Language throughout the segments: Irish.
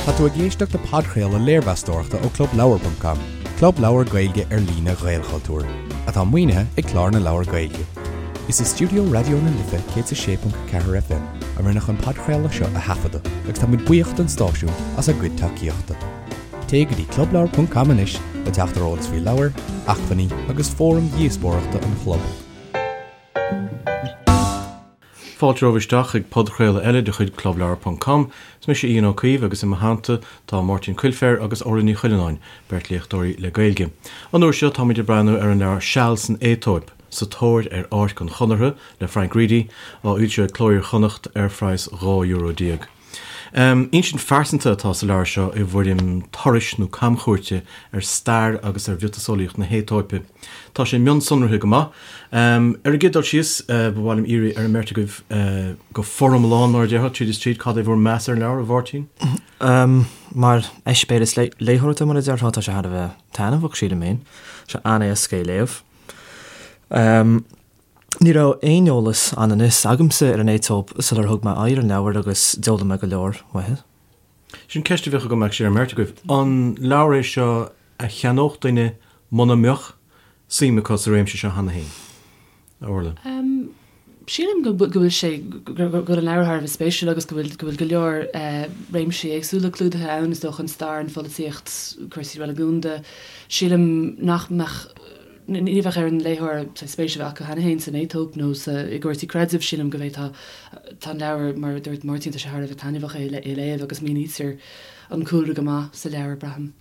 Tá tú ag éisteacht le podchraoladh léirmheastóireachta ó ClubLeabhar.com, club leabhar Gaeilge ar líne Ghaelchultúir, atá maoinithe ag Clár na Leabhar Gaeilge. Is i stiúideo Raidió na Life 106.4 FM a rinneadh an podchraoladh seo a thaifeadadh agus tá muid buíoch don stáisiún as a gcuid tacaíochta. Téigh go dtí clubleabhar.com anois le teacht ar eolas faoi leabhair, acmhainní agus fóraim dhíospóireachta an chlub. Fáilte romhaibh isteach chuig podchraoladh eile de chuid Clubleabhar ponc com. Is mise Ian Ó Caoimh agus i mo theannta tá Máirtín Coilféir agus Orla Ní Chuilleanáin, beirt léachtóirí le Gaeilge. An uair seo táimid ag breathnú ar an leabhar Seal san Aetóip, Sa Tóir ar Áirc an Chonartha le Frank Reidy, á fhoilsiú ag Cló Iar-Chonnacht ar phraghas €12. Insint phearsanta atá sa leabhar seo i bhfoirm turais nó camchuairte ar stair agus ar mhiotaseolaíocht na hAetóipe. Tá sé mionsonraithe go maith. Ar an gcéad dul síos, ba mhaith liom iarraidh ar an mbeirt agaibh go foriomlán, mar a déarfá, tríd is tríd, cad é bhur meas ar an leabhar, a Mháirtín? Mar eispéireas léitheoireachta, mar a déarfá, tá sé thar a bheith taitneamhach, sílim féin. Tá sé an-éasca é a léamh. Ní raibh aon eolas anonn is agamsa ar an Aetóip sular thug mé aghaidh ar an leabhar agus d'fhoghlaim mé go leor uaithi. Sin ceist a bheadh agam actually ar an mbeirt agaibh. An leabhar é seo a cheannódh duine muna mbeadh suim acu sa réimse seo cheana féin? A Orla? Sílim go bhfuil sé, go bhfuil an leabhar thar a bheith spéisiúil agus go bhfuil go bhfuil go leor réimsí éagsúla clúdaithe ann, is dócha, an stair, an pholaitíocht, cúrsaí reiligiúnda. Sílim nach mbeadh. Ní bheadh ar an léitheoir spéis a bheith acu cheana féin san Aetóip nó i gcúrsaí creidimh. Sílim go bhféadfá, tá an leabhar, mar a dúirt Máirtín, tá sé thar a bheith taitneamhach é a léamh agus mínítear an cúlra go maith sa leabhar, braithim.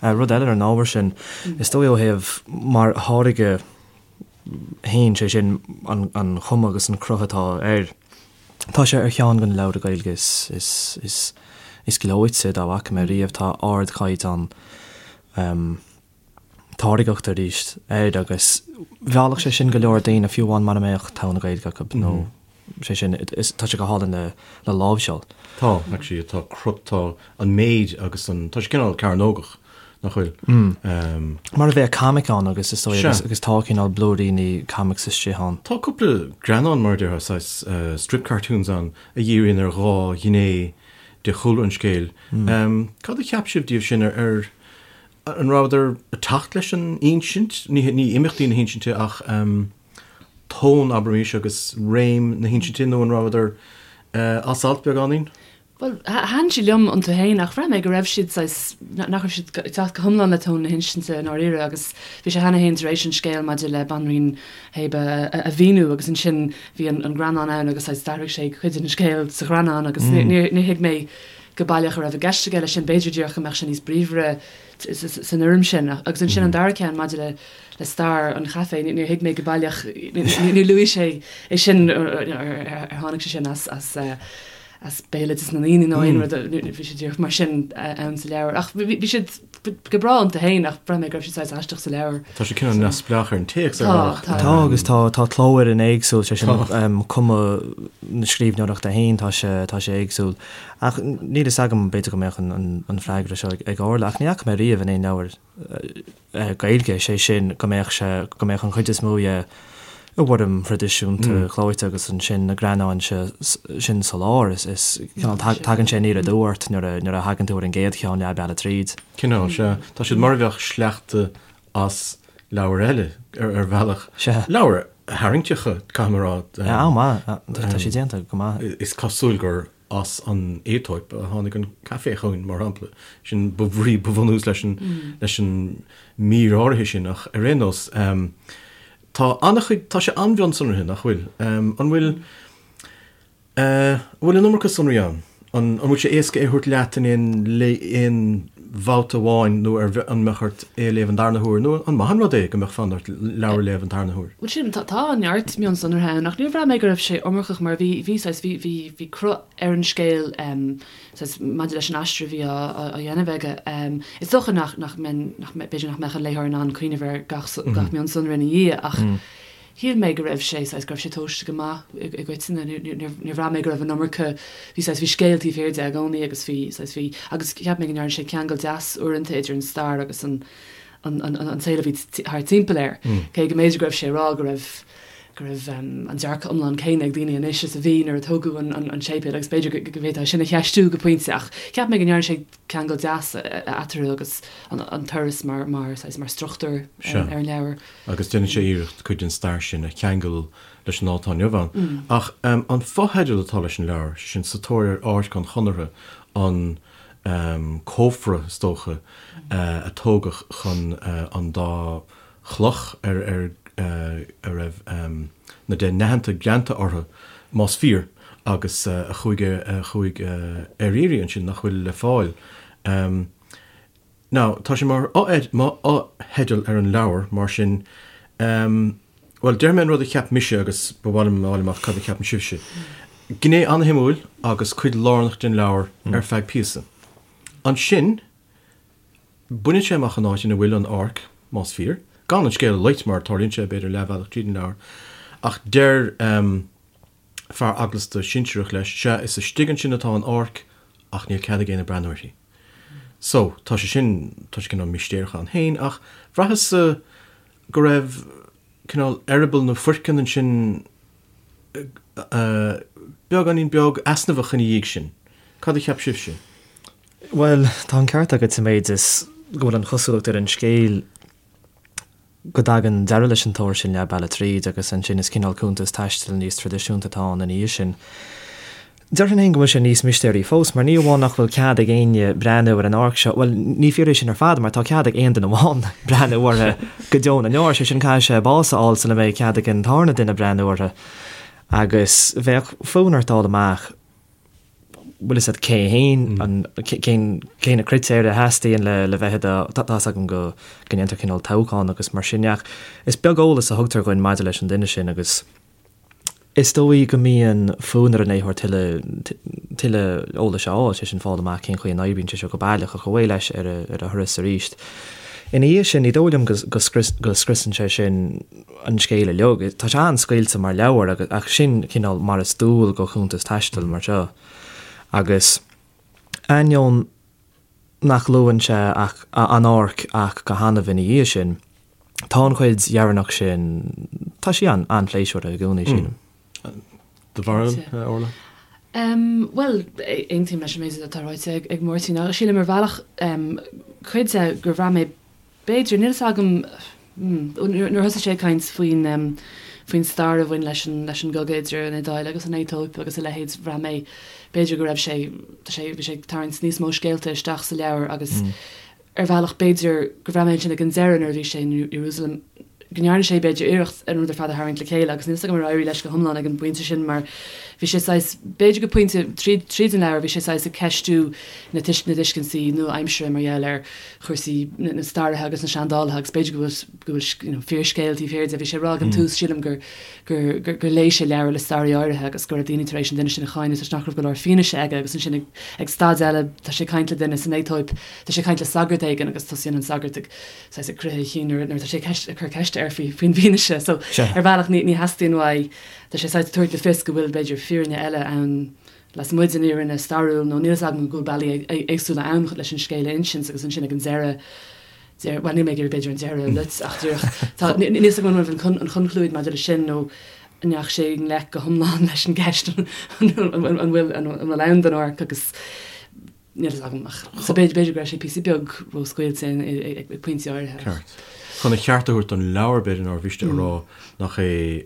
Rud eile ar an ábhar sin, is dóigh ó thaobh mar tháirge féin, sé sin an chuma agus an cruth atá air, tá sé ar cheann de na leabhra Gaeilge is gleoite dá bhfaca mé riamh. Tá ardchaighdeán. táirgeachta arís air agus mheallfadh sé sin go leor daoine fiú amháin mara mbeadh togha na Gaeilge acu nó sé sin tá sé go hálainn le le láimhseáil. Tá, actually, tá crut, tá an méid agus an, tá sé cineál cearnógach, nach bhfuil? Mar a bheadh comic ann agus is dóigh agus agus tá cineál blúiríní comics istigh ann. Tá cúpla greannán mar a déarfá, saghas strip cartoons ann a dhíríonn ar dhá ghné de chúlra an scéil. Cad a cheap sibh díobh sin ar ar An rabhadar ag teacht leis an insint? Ní imeachtaí na hinsinte ach tón, abraimis, agus réim na hinsinte nó an rabhadar as alt beagáinín? Bhuel, thaitin siad liom iontu féin ach bhraith mé go raibh siad saghas, nach raibh siad ag teacht go hiomlán le tón na hinsinte i ndáiríre agus bhí sé cheana féin tar éis an scéal maidir le Banríon Shéaba a mhíniú agus ansin bhí an greannán ann agus saghas d'athraigh sé cuid den scéal sa ghreannán agus níor thuig mé go baileach a raibh i gceist aige leis sin, b'fhéidir díreach go mbeadh sé níos bríomhaire san fhoirm sin. Agus ansin an dara ceann maidir le le stair an chaife, níor thuig mé go baileach, níor luaigh sé é sin, ar tháinig sé sin as as as béaloideas na ndaoine nó aon rud, bhí sé díreach mar sin ann sa leabhar. Ach bhí siad go breá iontu féin ach bhraith mé go raibh siad saghas aisteach sa leabhar. Tá sé cineál neamhspleách ar an téacs ar bhealach. Tá, tá. Tá agus tá tá clófhoireann éagsúil, sé sin cuma na scríbhneoireachta féin, tá sé tá sé éagsúil. Ach níl fhios agam, b'fhéidir go mbeadh an freagra seo ag Orla, ach ní fhaca mé riamh in aon leabhar Gaeilge, sé sin, go mbeadh sé, go mbeadh an chuid is mó dhe i bhfoirm thraidisiúnta chlóite agus ansin na greannáin sin sa lár, is cineál, tagann sé aniar aduaidh ort nuair a, nuair a thagann tú ar an gcéad cheann leath bealaigh tríd. Cineál, sea. Tá siad mar a bheadh sleachta as leabhair eile, ar bhealach. Sea. Leabhair tharraingteacha, caithfidh mé a rá. An-mhaith, tá sé déanta go maith. Is cosúil gur as an Aetóip a tháinig an caife chugainn, mar shampla. Sin ba bhrí, ba bhunús leis an, leis an mír áirithe sin, ach ar aon nós, tá an-chuid, tá sé an-mhionsonraithe, nach bhfuil? An bhfuil, An bhfuil an iomarca sonraí ann? An bhfuil sé éasca é a thabhairt leat in aon aon bhabhta amháin nó ar an mbeadh ort é a léamh an darna huair nó an maith an rud é go mbeadh fonn ort leabhar a léamh an tarna huair? Bhuel sílim, tá tá neart mionsonraithe ann ach níor bhraith mé go raibh sé iomarcach mar bhí bhí saghas bhí bhí bhí cruth ar an scéal saghas maidir leis an aistear a bhí á á dhéanamh aige. Is dócha nach nach mbeinn nach b'fhéidir nach mbeadh an léitheoir in ann cuimhneamh ar gach gach mionsonra ina dhiaidh ach Shíl mé go raibh sé, saghas, go raibh sé tomhaiste go maith i gcoitinne. Níor bhraith mé go raibh an iomarca, bhí, saghas, bhí scéal taobh thiar de i gcónaí agus bhí, saghas, bhí, agus cheap mé go ndearna sé ceangal deas uaireanta idir an stair agus an, an, an, an saol a bhí thart timpeall air. Cé go mb'fhéidir go raibh sé ag rá go raibh. go raibh an dearcadh iomlán céanna ag daoine anois is a bhí nuair a tógadh an séipéal agus b'fhéidir go bhféadfá sin a cheistiú go pointe ach cheap mé go ndearna sé ceangal deas eatarthu agus an turas mar mar saghas mar struchtúr ar an leabhar. Agus déanann sé iarracht cuid den stair sin a cheangal leis an lá atá inniu ann. Ach an fotheideal atá leis an leabhar, sé sin Sa Tóir ar Áirc an Chonartha, an cófra is dócha a tógadh chun an dá chloch ar ar a raibh na Deich nAitheanta greanta orthu, más fíor, agus a chuaigh a chuaigh ar iarraidh ansin, nach bhfuil le fáil. Now, tá sé mar fhotheideal ar an leabhar, mar sin, bhuel, déarfaidh mé an rud a cheap mise agus ba mhaith liom a fháil amach cad a cheapann sibhse. Gné an-shuimiúil agus cuid lárnach den leabhar ar feadh píosa. Ansin, Baineann sé amach an áit ina bhfuil an áirc, más fíor, gan an scéal a loit, mar tarlaíonn sé, b'fhéidir, leathbhealach tríd an leabhar, ach deir fear eaglasta sinsearach leis, sea, is istigh ansin atá an áirc, ach níl cead ag éinne breathnú uirthi. So, tá sé sin, tá sé cineál mistéireach ann féin, ach bhraitheas-sa go raibh cineál eireaball nó foirceann ansin beagáinín beag easnamhach ina dhiaidh sin. Cad a cheap sibhse? Bhuel, tá an ceart agat sa méid is go bhfuil an chosúlacht ar an scéal go dtagann deireadh leis an tóir sin leath bealaigh tríd agus ansin is cineál cuntas taistil níos traidisiúnta atá ann ina dhiaidh sin. Déarfainn féin go bhfuil sé níos mistéirí fós mar ní amháin nach bhfuil cead ag éinne breathnú ar an áirc seo, bhuel, ní fíor é sin ar fad mar tá cead ag aon duine amháin breathnú uirthi go deo na ndeor, sé sin caithfidh sé bás a fháil sula mbeidh cead ag an tarna duine breathnú uirthi agus bheadh fonn ort fháil amach bhfuil fhios agat cé féin, an, cén, cé na critéir a theastaíonn le, le bheith i do, tá, tá's agam go, go ndéantar cineál toghchán agus mar sin de ach is beag eolas a thugtar dhuinn maidir leis an duine sin agus is dóigh go mbíonn fonn ar an léitheoir tuilleadh, tuilleadh eolais a fháil, sé sin fáil amach cén chaoi a n-oibríonn sé seo go baileach ach away leis ar a, ar a thuras arís. Ina dhiaidh sin, ní dóigh liom go, go scrios, go scriosann sé sin an scéal uilig. Tá sé an-scaoilte mar leabhar agus, ach sin cineál mar is dual do chuntas taistil mar seo. Agus ainneoin nach luann sé ach an áirc ach go hannamh ina dhiaidh sin, tá an chuid dheireanach sin, tá sí an-phléisiúrtha i gcónaí, sílim. Do bharúil, Orla? Bhuel, aontaím leis an méid atá ráite ag Máirtín. Sílim ar bhealach, cuid de, gur bhraith mé B'fhéidir, níl fhios agam, nuair a thosaigh sé ag caint faoin faoin stair a bhain leis an leis an gcogadh idir an Iodáil agus an Aetóip agus a leithéid, bhraith mé, b'fhéidir go raibh sé, tá sé, bhí sé ag tarraingt níos mó scéalta isteach sa leabhar agus ar bhealach b'fhéidir go bhraith mé ansin ag an deireadh nuair a bhí sé in Iarúsailéim go ndearna sé b'fhéidir iarracht an rud ar fad a tharraingt le chéile agus níl fhios agam ar éirigh leis go hiomlán ag an bpointe sin mar bhí sé saghas, b'fhéidir go pointe tríd tríd an leabhar bhí sé saghas ag ceistiú na na tuiscintí nua-aimsire mar gheall ar chúrsaí na staraithe agus na seandálaithe agus b'fhéidir go bhfuil go bhfuil you know fíorscéal taobh thiar de. Bhí sé ag rá ag an tús sílim gur gur gur gur léigh sé leabhar le staraí áirithe agus go raibh daoine tar éis an duine sin a cháineadh toisc nach raibh go leor fianaise aige agus ansin ag ag staid eile tá sé ag caint le duine san Aetóip tá sé ag caint le sagart éigin agus tosaíonn an sagart ag saghas ag croitheadh a chinn nuair nuair atá sé ag ceist ag cur ceiste air faoi faoin bhfianaise so ar bhealach ní ní theastaíonn uaidh tá sé saghas ag tabhairt le fios go bhfuil b'fhéidir fírinne eile ann lasmuigh den fhírinne stairiúil nó níl fhios agam go bhfuil bealaí éagsúla ann leis an scéal a insint agus ansin ag an deireadh, deir, bhuel níl mé ag iarraidh b'fhéidir an deireadh a loit ach díreach tá, níl fhios agam an raibh an chonclúid maidir leis sin nó an ndeachaigh sé i ngleic go hiomlán leis an gceist an bhfuil an bhfuil ann don áirc agus níl fhios agam ach so b'fhéidir b'fhéidir go raibh sé píosa beag róscaoilte ag pointí áirithe. Ceart. Chun a cheart a thabhairt don leabhar b'fhéidir nár mhiste a rá nach é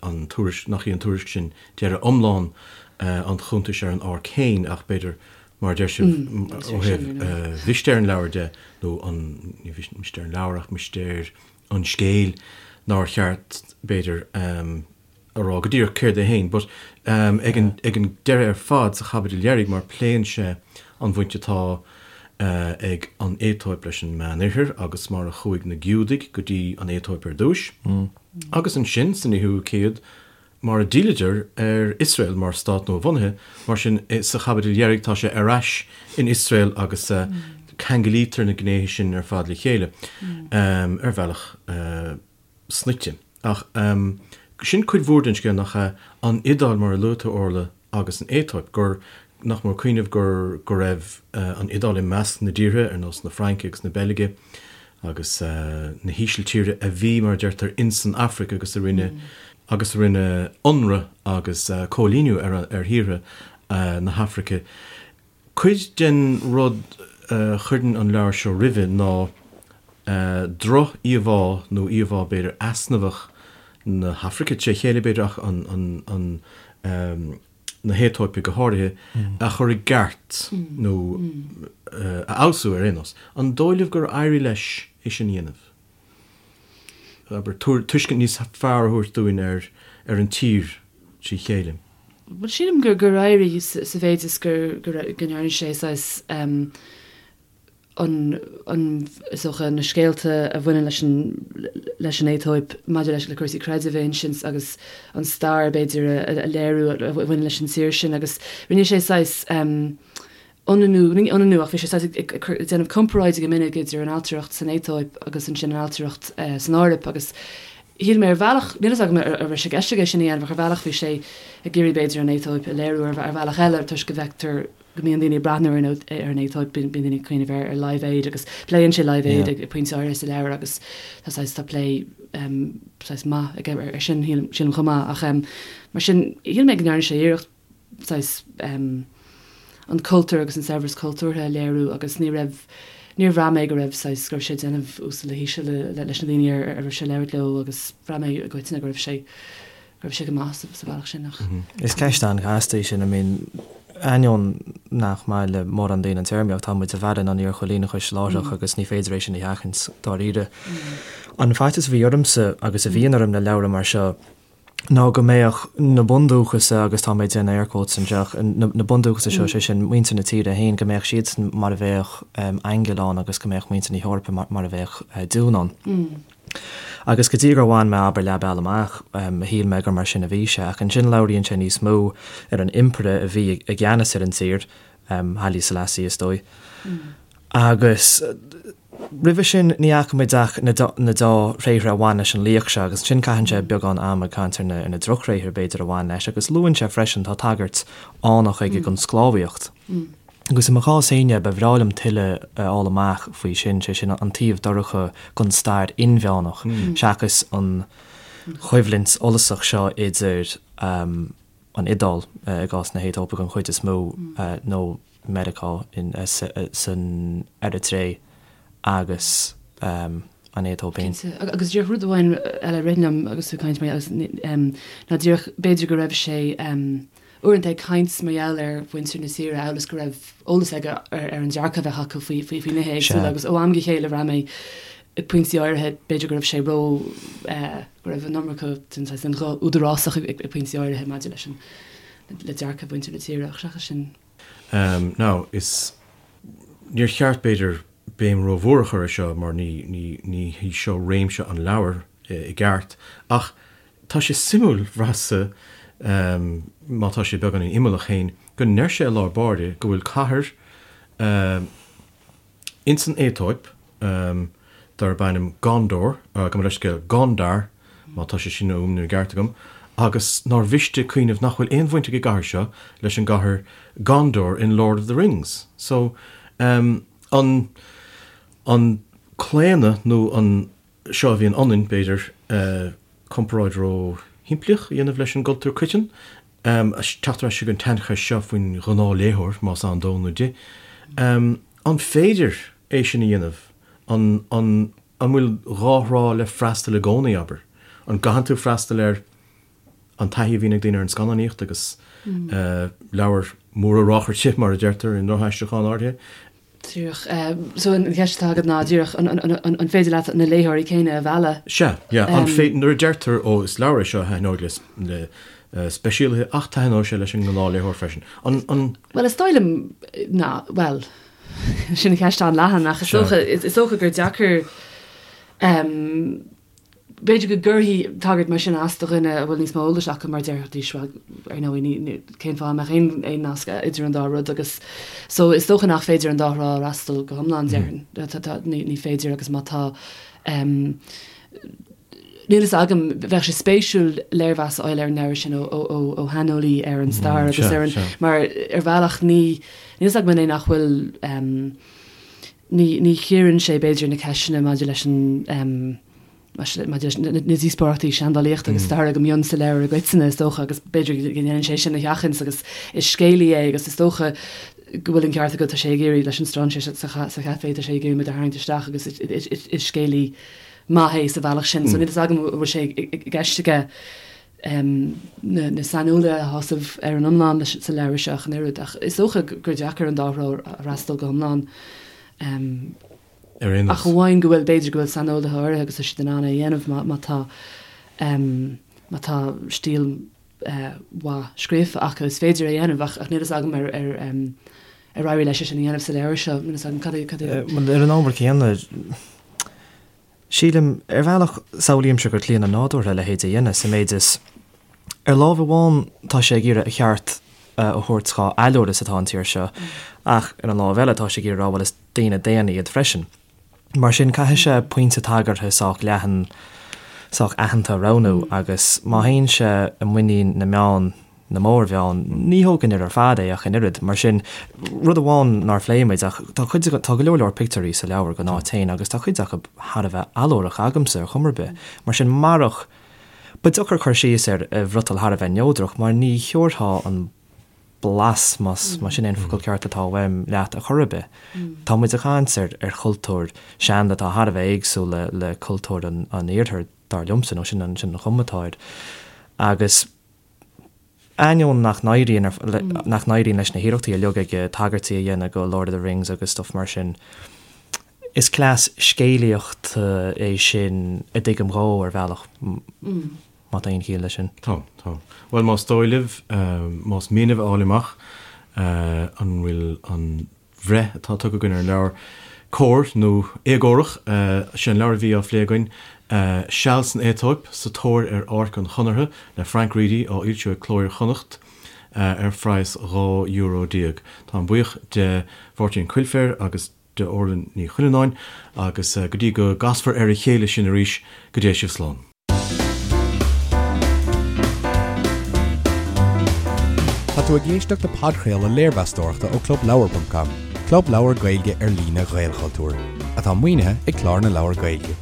an tuairisc nach í an tuairisc sin deireadh iomlán an chuntais ar an áirc féin ach b'fhéidir, mar a deir sibh, ó thaobh mhistéir an leabhair de, nó an, ní mistéir an leabhair ach mistéir an scéil, nár cheart, b'fhéidir, a rá go díreach céard é féin. But ag an, ag an deireadh ar fad, sa chaibidil dheiridh, mar pléann sé an bhaint atá ag an Aetóip leis an Meánoirthear agus mar a chuaigh na Giúdaigh go dtí an Aetóip ar dtúis, agus ansin san fhichiú céad, mar a d'fhilleadar ar Iosrael mar stát nua-bhunaithe, mar sin sa chaibidil dheiridh tá sé ar ais in Iosrael agus ceanglaítear na gnéithe sin ar fad le chéile ar bhealach snoite. Ach sin cuid mhór den scéal, nach ea? An Iodáil, mar a luaigh tú, Orla, agus an Aetóip, gur, nach mór cuimhneamh gur, go raibh an Iodáil i measc na dtíortha, ar nós na Fraince agus na Beilge agus na hÍsiltíre, a bhí, mar a deirtear, ins an Afraic agus a rinne. agus a rinne ionradh agus cóilíniú ar ar thíortha na hAfraice. Cuid den rud a chuireann an leabhar seo roimhe ná droch-íomhá nó íomhá b'fhéidir easnamhach na hAfraice tré chéile b'fhéidir ach an an na hAetóipe go háirithe, a chur i gceart nó a fheabhsú ar aon nós. An dóigh libh gur éirigh leis é sin a dhéanamh? Abair, tuiscint níos fearr a thabhairt dúinn ar ar an tír trí chéile. Bhuel, sílim gur gur éirigh sa mhéid is gur go ndearna sé saghas an an is dócha na scéalta a bhaineann leis an leis an Aetóip maidir leis le cúrsaí creidimh a insint agus an stair b'fhéidir a a léiriú a bhaineann leis an tír sin agus rinne sé saghas ionannú, ní ionannú ach bhí sé saghas ag déanamh comparáide go minic idir an ailtireacht san Aetóip agus ansin an ailtireacht san Eoraip agus shíl mé ar bhealach, níl a fhios agam an raibh sé i gceist aige sin a dhéanamh ach ar bhealach bhí sé ag iarraidh b'fhéidir an Aetóip a léiriú ar bhealach eile toisc go bhfeictear go mbíonn daoine ag breathnú ar an Aetóip, bíonn daoine ag cuimhneamh ar Live Aid agus pléann sé Live Aid ag pointe áirithe sa leabhar agus tá saghas, tá plé saghas maith aige ar sin sílim chomh maith ach mar sin shíl mé go ndearna sé iarracht saghas an cultúr agus an saibhreas cultúrtha a léiriú agus ní raibh, níor bhraith mé go raibh saghas, go raibh sé ag déanamh uasal le híseal leis na daoine ar a raibh sé ag labhairt leo agus bhraith mé i gcoitinne go raibh sé, go raibh sé go maith sa bhealach sin ach. Is ceist an-chasta í sin, I mean ainneoin nach maith le mórán daoine an téarmaíocht, tá muid i bhfearann an iarchoilíneachais láithreach agus ní féidir é sin a sheachaint dáiríre. An faitíos a bhí ormsa agus a bhíonn orm le leabhra mar seo, ná go mbeadh na bundúchasaigh, agus tá mé ag déanamh air quotes anseo, na bundúchasaigh seo, sé sin muintir na tíre féin, go mbeadh siadsan mar a bheadh aingil ann agus go mbeadh muintir na hEorpa mar a bheadh deamhan ann. Agus go dtí gur bhain mé, abair, leath bealaigh amach, shíl mé gur mar sin a bhí sé. Ach ansin labhraíonn sé níos mó ar an impire a bhí i gceannas ar an tír, Haile Selassie is dóigh. Agus roimhe sin ní fhaca muid ach na deá-thréithre a bhain leis an laoch seo agus ansin caitheann sé beagán ama ag caint ar na drochthréithre b'fhéidir a bhain leis agus luann sé freisin, tá tagairt fhánach aige don sclábhaíocht. Agus i mo chás féin, ba bhreá liom tuilleadh a fháil amach faoi sin, sé sin an taobh dorcha den stair inmheánach seachas an choimhlint fhollasach seo idir an Iodáil, i gcás na hAetóipe den chuid is mó, nó Meiriceá san Eiritré agus an Aetóip féin. Cinnte. Agus díreach rud amháin eile a rith liom agus tú ag caint mar gheall ná díreach b'fhéidir go raibh sé uaireanta ag caint mar gheall ar mhuintir na tíre amhail is go raibh eolas aige ar an dearcadh a bheadh acu faoi faoi nithe éagsúla agus ó am go chéile bhraith mé ag pointí áirithe b'fhéidir go raibh sé ró go raibh an iomarca den saghas den ghuth údarásach ag pointí áirithe maidir leis an le dearcadh mhuintir na tíre ach seachas sin. Now, is, níor cheart, b'fhéidir, béim rómhór a chur ar seo mar ní, ní, ní hí seo réimse an leabhair i gceart, ach tá sé suimiúil, bhraitheas-sa, má tá sé beagáinín imeallach féin, go ndeir sé i lár báire go bhfuil cathair Ins an Aetóip, darb ainm Gondor, gabh mo leithscéal, Gondar, má tá sé sin á fhuaimniú i gceart agam, agus nár mhiste cuimhneamh nach bhfuil aon bhaint ag an gcathair seo leis an gcathair Gondor in Lord of the Rings. So, an, an claonadh nó an, seo a bhíonn ionainn, b'fhéidir, comparáid ró-shimplíoch a dhéanamh leis an gcultúr coiteann, teacht ar ais chuig an tsaincheist seo faoin ghnáthléitheoir, más ann dó nó di. An féidir é sin a dhéanamh? An, an, an bhfuil dhá thrá le freastal i gcónaí, abair? An gcaitheann tú freastal ar an taithí a bhíonn ag daoine ar an scannánaíocht agus leabhair móra ráchairte, mar a deirtear i ndrochaistriúchán áirithe? Díreach. So an cheist atá agat ná díreach an féidir leat na léitheoirí céanna a mhealladh? Sea, yeah. An féidir, nuair a deirtear, ó, is leabhar é seo a thaitneoidh le speisialaithe ach taitneoidh sé leis an ngnáthléitheoir freisin. An, an. Bhuel, is dóigh liom ná, bhuel, sin ceist an-leathan ach is dócha, is dócha gur deacair, B'fhéidir go gcuirfidh tagairt mar sin as do dhuine a bhfuil níos mó eolais acu mar déarfaidís, bhuel, ar ndóigh, ní, cén fáth a mbeadh aon, aon nasc idir an dá rud agus so is dócha nach féidir an dá thrá a fhreastal go hiomlán, déarfainn. Tá, tá, ní, ní féidir agus má tá, em, níl fhios agam, bheadh sé spéisiúil léirmheas a fháil ar an leabhar sin ó, ó, ó, ó shaineolaí ar an stair agus ar an, mar ar bhealach ní, níl fhios agam an é nach bhfuil, em, ní, ní chíorann sé b'fhéidir na ceisteanna maidir leis an, em. Maidir leis na díospóireachtaí seandálaíochta agus staire go mbíonn sa leabhar i gcoitinne, is dócha, agus b'fhéidir go ndéanann sé sin a sheachaint agus is scéalaí é agus is dócha go bhfuil an ceart agat, tá sé ag iarraidh, leis an strainséir sa chaifé, tá sé ag iarraidh muid a tharraingt isteach agus is scéalaí maith é sa bhealach sin. So níl fhios agam an bhfuil sé i gceist aige na saineolaithe a shásamh ar an iomlán sa leabhar seo ach an oiread, ach is dócha gur deacair an dá threo a fhreastal go hiomlán. Ar aon nós. Ach amháin go bhfuil, b'fhéidir go bhfuil saineolaithe áirithe agus tá siad in ann é a dhéanamh má, má tá, má tá stíl mhaith scríofa acu, is féidir é a dhéanamh ach, ach níl fhios agam ar, ar, ar éirigh leis é sin a dhéanamh sa leabhar seo, níl fhios agam cad é, cad é. Bhuel, ar an ábhar céanna, sílim, ar bhealach, samhlaímse gur claonadh nádúrtha a leithéid a dhéanamh, sa méid is, ar láimh amháin tá sé ag iarraidh a cheart a thabhairt dhá allúr is atá an tír seo, ach ar an láimh eile tá sé ag iarraidh a rá, bhuel, is daoine daonna iad freisin. Mar sin, caithfidh sé pointe tagartha sách leathan, sách aitheanta a roghnú agus má théann sé i muinín na meán, na mórmheán, ní thógfainn air ar fad é ach an oiread. Mar sin, rud amháin nár phléigh muid ach tá cuid, tá go leor leor pictiúirí sa leabhar don áit féin agus tá cuid acu thar a bheith allúrach agamsa ar chuma ar bith. Mar sin, marach, ba deacair cur síos air i bhfriotal thar a bheith neodrach mar ní thiúrfá an blas, más sin é an focal ceart atá uaim, leat ar chor ar bith. Tá muid ag caint ar ar chultúr seanda atá thar a bheith éagsúil le le cultúr an an iarthair, dar liomsa, nó sin an sin an chuma atá air. Agus ainneoin nach n-éiríonn nach n-éiríonn leis na hiarrachtaí uilig aige tagairtí a dhéanamh go Lord of the Rings agus stuff mar sin, is cleas scéalaíochta é sin a dtuigim dhó ar bhealach. Má tá aon chiall leis sin. Tá, tá. Bhuel, más dóigh libh, más mian libh a fháil amach an bhfuil an bhreith atá tugtha againn ar an leabhar cóir nó éagórach, sé an leabhar a bhí á phlé againn, Seal san Aetóip, Sa Tóir ar Áirc an Chonartha le Frank Reidy, á fhoilsiú ag Cló Iar-Chonnacht ar phraghas €12 euro. Táim buíoch de Mháirtín Coilféir agus de Orla Ní Chuilleanáin agus go dtí go gcasfar ar a chéile sinn arís, go dté sibh slán. Tá tú ag éisteacht le podchraoladh léirmheastóireachta ó ClubLeabhar.com, club leabhar Gaeilge ar líne Ghaelchultúir, atá maoinithe ag Clár na Leabhar Gaeilge.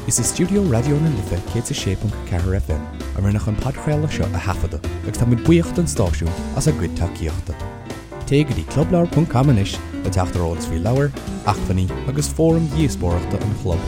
Is i stiúideo Raidió na Life 106.4 FM a rinneadh an podchraoladh seo a thaifeadadh agus táimid buíoch don stáisiún as a gcuid tacaíochta. Téigh go dtí clubleabhar.com anois le teacht ar eolas faoi leabhair, acmhainní agus fóraim dhíospóireachta an chlub.